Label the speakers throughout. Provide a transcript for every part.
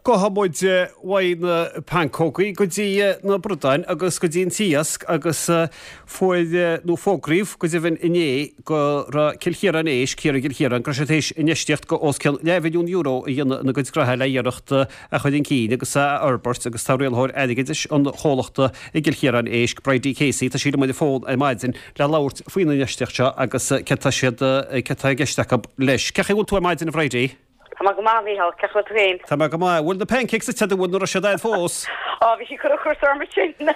Speaker 1: Gabhfaidh muid uaidh na pancógaí go dtí na bradáin agus go dtí an t-iasc agus fuair, nó fógraíodh go deimhin inné go raibh Cill Chiaráin Éisc, thiar i gCill Chiaráin, go raibh siad théis infheistíocht go os cionn leathmhilliún euro a dhéanamh ina gcuid gnoithe le iarracht a chur chun cinn agus a fhorbairt agus tá rialaitheoir airgeadais an chomhlachta i gCill Chiaráin Éisc, Bridie Casey, tá sí liom ar an bhfón ar maidin le labhairt faoin infheistíocht seo agus céard tá siad, céard tá i gceist acu leis. Cén chaoi a bhfuil tú ar maidin a Bhridie?
Speaker 2: Tá mé go maith, a Mhícheál. Cén chaoi a bhfuil tú féin?
Speaker 1: Tá mé go maith. Bhfuil na pancakes ite agat, bhfuil, nó raibh siad a'd fós?
Speaker 2: Á, bhí sí ag cur ocras orm ansin.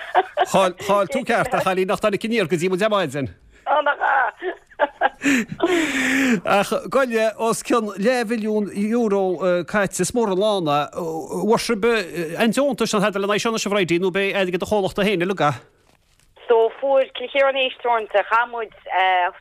Speaker 1: Chaill, chaill tú ceart, a chailín, nach dtáinig aniar go dtí muid ar maidin.
Speaker 2: Á, nach ea?
Speaker 1: Ach gabh i leith, os cionn leathmhilliún euro caite, is mór an lán é. Bhfuair sibh aon deontas nó tada lena aghaidh seo anois, a Bhridie, nó b'é airgead an chomhlachta féin uilig é?
Speaker 2: So fuair Cill Chiaráin Éisc Teoranta, chaith muid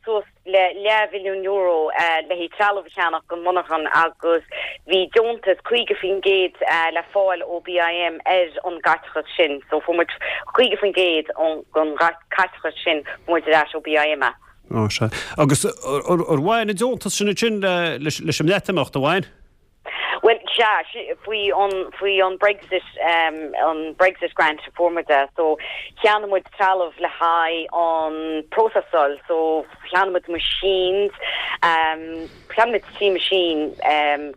Speaker 2: suas le leathmhilliún euro le haghaidh trealamh a cheannach don mhonarchan agus bhí deontas 50% le fáil ó BIM ar an gcaiteachas sin. So fuair muid 50% den chaiteachas sin fuair muid ar ais ó BIM é.
Speaker 1: Ó sea. Agus ar bhain an deontas sin ansin leis an mBreatimeacht, ar bhain?
Speaker 2: Bhuel, sea, faoi an, faoi an Brexit, an Brexit grant a fuair muid é. So, cheannaigh muid trealamh le haghaidh an próiseáil. So, cheannaigh muid machines, cheannaigh muid 3 machine,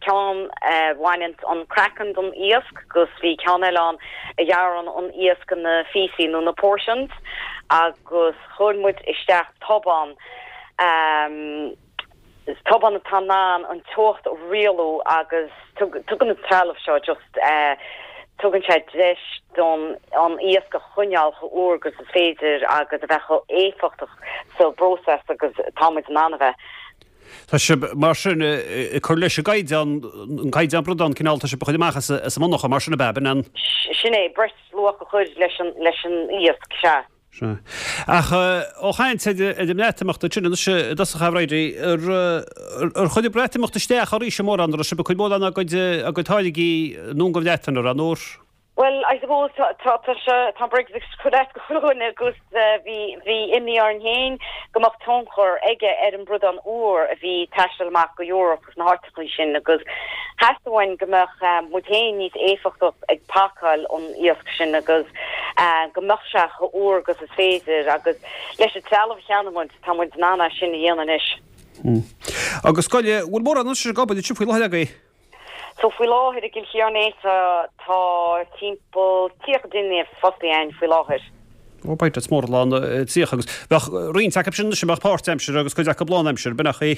Speaker 2: ceann a bhaineann an craiceann den iasc agus bhí ceann eile ann a ghearrann an iasc ina phíosaí nó na portions agus chuir muid isteach tobán, Is tobán atá in ann an teocht a rialú agus tugann an trealamh seo just tugann sé deis don an iasc a choinneáil chomh úr agus is féidir agus a bheith chomh éifeachtach sa bpróiseas agus atá muid in ann a bheith.
Speaker 1: Tá sibh mar sin ag cur leis an gcaighdeán, an caighdeán bradán cineál, tá sibh ag cur amach as an monarcha mar sin ab ea, b'in an.
Speaker 2: Sin é, breis luach a chur leis an iasc, sea.
Speaker 1: Sea. Ach ó chaint ar an mBreatimeacht ansin anois i dtosach a Bhridie, ar chuir an Breatimeacht isteach oraibhse mórán, an raibh sibh ag cur mórán a gcuid a gcuid táirgí anonn gon Bhreatain, an raibh, nó ar?
Speaker 2: Bhuel, I suppose tá tá tá sé tá Brexit ag cur as do chuile dhuine agus bhí bhí imní orainn féin go mbeadh tionchar aige ar an bradán úr a bhí ag taisteal amach go Europe agus na háiteachaí sin agus theastaigh uainn go mbeadh muid féin níos éifeachtach ag pacáil an iasc sin agus go mbeadh sé chomh úr agus is féidir agus leis an trealamh a cheannaigh muid tá muid in ann é sin a dhéanamh anois.
Speaker 1: Agus gabh i leith, bhfuil mórán anois ag obair ansin faoi láthair agaibh?
Speaker 2: So faoi láthair i gCill Chiaráin Éisc tá timpeall 30 duine fostaithe againn faoi láthair.
Speaker 1: Ó b'fhéidir, is mór an lán 30 agus bheadh roinnt acu sin anois a mbeadh páirtaimseartha agus cuid acu lánaimseartha, b'in é.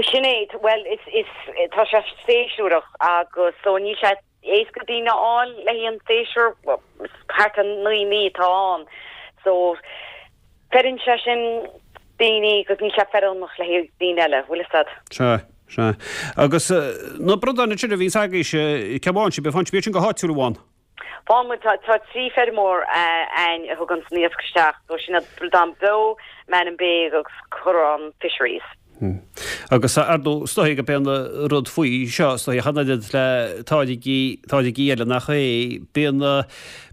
Speaker 2: Sin é, bhuel is, is, tá sé séasúrach agus so níl sé éasca daoine a fháil le haghaidh an séasúr, thart ar 9 mí atá ann so Feileann sé sin daoine agus níl sé feiliúnach le haghaidh daoine eile, bhfuil fhios a'd.
Speaker 1: Sea, sea. Agus na bradáin ansin a bhíonns agaibhse, cá bhfaigheann sibh, faigheann sibh iad sin go háitiúil an bhfaigheann?
Speaker 2: Faigheann muid, tá, tá 3 feirmeoir a'ainn a thuganns an iasc isteach, so sin iad Bradán Beo, Mannin Bay agus Corrán Fisheries.
Speaker 1: Agus ar ndóigh, is dóigh gurb é an rud faoi seo, is dóigh, ach an oiread le táirgí, táirgí eile nach é, bíonn,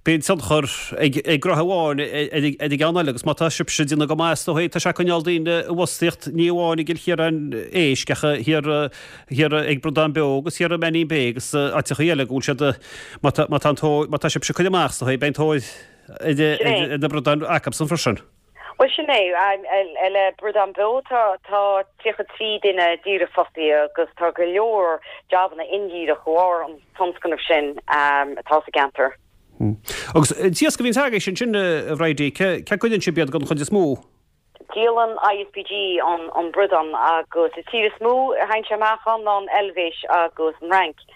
Speaker 1: bíonn tionchar ag, ag gnoithe amháin ar, ar an gceann eile agus má tá sibhse ag déanamh go maith, is dóigh, tá sé ag coinneáil daoine i bhfostaíocht, ní amháin i gCill Chiaráin Éisc ach thiar, thiar ag Bradán Beo agus thiar i Mannin Bay agus áiteachaí eile go bhfuil siad, má tá, má tá an tóir, má tá sibhse ag cur amach, is dóigh, beidh an tóir ar, ar na bradáin acusan freisin.
Speaker 2: Bhuel, sin é. Le Bradán Beo tá 33 duine díreach fostaithe agus tá go leor jabanna indíreach de bharr an tionscnaimh sin atá sa gceantar.
Speaker 1: Agus an t-iasc a bhíonns agaibhse ansin, a Bhridie, cé cá gcuireann sibh iad den chuid is mó?
Speaker 2: Díolann ISPG an bradán agus an tír is mó a théann sé amach ann ná an Eilvéis agus an Fhrainc.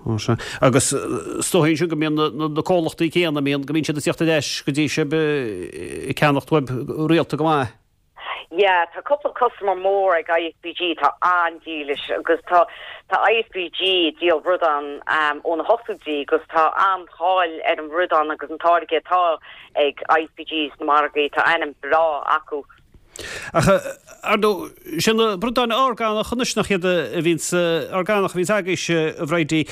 Speaker 1: Ó sea. Agus is dóigh ansin go mbíonn na comhlachtaí céanna, mbíonn, go mbíonn siad ag tíocht ar ais go dtí sibh ag ceannacht uaibh rialta go maith.
Speaker 2: Yeah, tá cúpla customer mór ag ISPG atá an-dílis agus tá tá ISPG ag díol bradán ó na hochtóidí agus tá an-cháil ar an bhradán agus an táirge atá ag ISPG sna margaí, tá ainm breá acu.
Speaker 1: Ach, ar ndóigh, sé na bradáin orgánach anois nach iad a bhíonns, orgánach a bhíonns agaibhse, a Bhridie.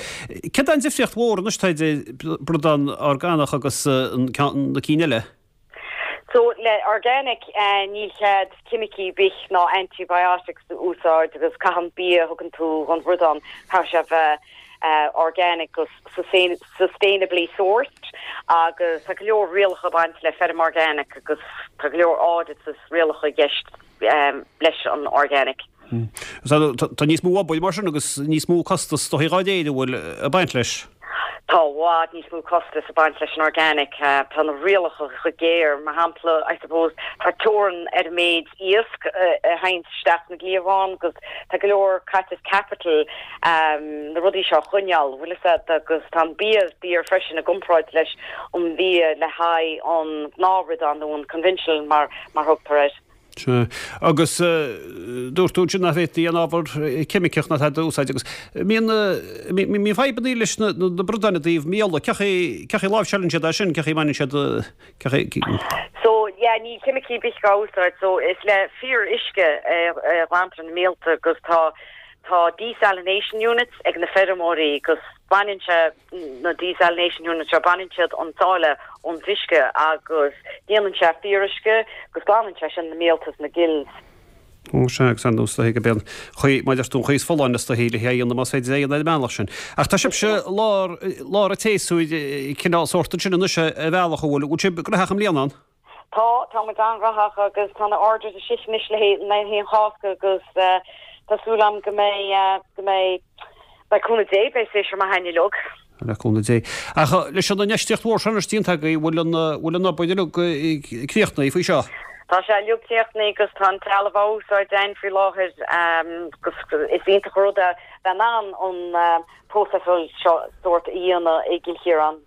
Speaker 1: Céard é an difríocht mhór anois atá idir bradán orgánach agus an ceann, na cinn eile?
Speaker 2: So, le organic, níl cead ceimicí ar bith ná antibiotics a úsáid agus caithfidh an bia a thugann tú don bhradán, caithfidh sé a bheith. organic agus sustainably sourced agus tá go leor rialacha ag baint le feirm organic agus tá go leor audits is rialacha i gceist leis an organic.
Speaker 1: Tá níos mó obair mar sin agus níos mó costas is dóichí dhá réir an bhfuil ag baint leis.
Speaker 2: Tá i bhfad níos mó costas ag baint leis an organic. Tá na rialacha chomh géar. Mar shampla, I suppose, tá teorainn ar an méid iasc a théann isteach sna cliabháin agus tá go leor caiteachas capital na rudaí seo a choinneáil, bhfuil fhios agat, agus tá an bia daor freisin i gcomparáid leis an bhia le haghaidh an gnáthbhradán nó an conventional mar mar thugtar air.
Speaker 1: Sea. Agus dúirt tú ansin nach bhféadfaí aon ábhar ceimiceach ná tada a úsáid agus mbíonn mbíonn fadhbanna leis na bradáin i dtaobh míola. Cén chaoi cén chaoi a láimhseálann siad é sin, cén chaoi a mbaineann siad cén chaoi.
Speaker 2: So yeah níl ceimicí ar bith á úsáid so is le fíor uisce a ghlantar na míolta agus tá tá desalination units ag na feirmeoirí agus baineann sé na desalination units seo, baineann siad an sáile ón uisce agus déanann sé fíoruisce agus glanann sé sin na míolta is na gills.
Speaker 1: Ó sea, agus ar ndóigh is dóichí gurb é an chaoi, mar a deir tú, an chaoi is folláine is dóichí le hé a dhéanamh más féidir é a dhéanamh ar an mbealach sin. Ach tá sibhse i lár, lár an tséasúir cineál sórt ansin anois ar bhealach, an bhfuil, bhfuil sibh gnóthach i mbliana ann?
Speaker 2: Tá, tá muid an-ghnóthach agus tá na orders istigh anois le haghaidh an Chásca agus tá súil agam go mbeidh, go mbeidh, le cúnamh Dé, beidh séasúr maith againn uilig.
Speaker 1: Le cúnamh Dé. Ach leis an infheistíocht mhór seo anois déanta agaibh, bhfuil an, bhfuil an obair uilig críochnaithe faoi seo?
Speaker 2: Tá sé uilig críochnaithe agus tá an trealamh á úsáid againn faoi láthair agus is iontach an rud é bheith in ann an próiseáil seo sórt a dhéanamh i gCill Chiaráin.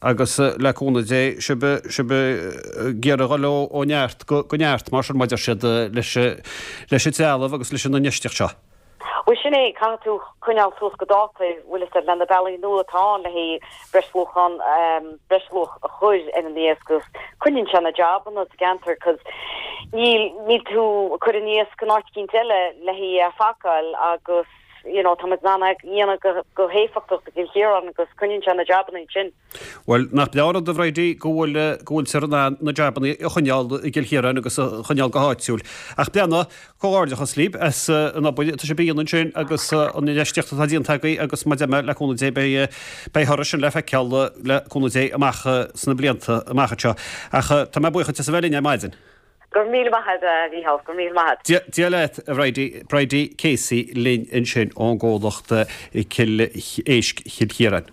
Speaker 1: Agus le cúnamh Dé, sibh, sibh ag iarraidh a dhul ó, ó neart go, go neart, mar sin, mar a deir siad, leis, leis an trealamh agus leis an infheistíocht seo.
Speaker 2: Bhuel, sin é, caithfidh tú coinneáil suas go dáta, bhfuil fhios agat, le na bealaí nua atá ann le haghaidh breisluachán, breisluach a chur ar an iasc agus coinníonn sé na jabanna sa gceantar 'cause níl, níl tú ag cur an iasc in áit eicínt eile le haghaidh é a phacáil agus. you know, tá muid in ann é a dhéanamh go, go héifeachtach i gCill Chiaráin agus coinníonn sé na jabanna ansin.
Speaker 1: Bhuel, nach breá an rud, a Bhridie, go bhfuil, go bhfuiltear in ann na jabanna a choinneáil i gCill Chiaráin agus a choinneáil go háitiúil. Ach breathnaigh, comhghairdeachas libh as an obair atá sibh a dhéanamh ansin agus an infheistíocht atá déanta agaibh agus mar a deir mé, le cúnamh Dé, beidh, beidh toradh sin le feiceáil le cúnamh Dé amach sna blianta amach anseo. Ach tá mé buíoch duit as a bheith linn ar maidin.
Speaker 2: Go raibh míle maith agat, a Mhícheál, go raibh míle maith
Speaker 1: agat. Dia leat, a Bhridie, Bridie Casey linn ansin ón gcomhlacht Cill Éisc Chill Chiaráin.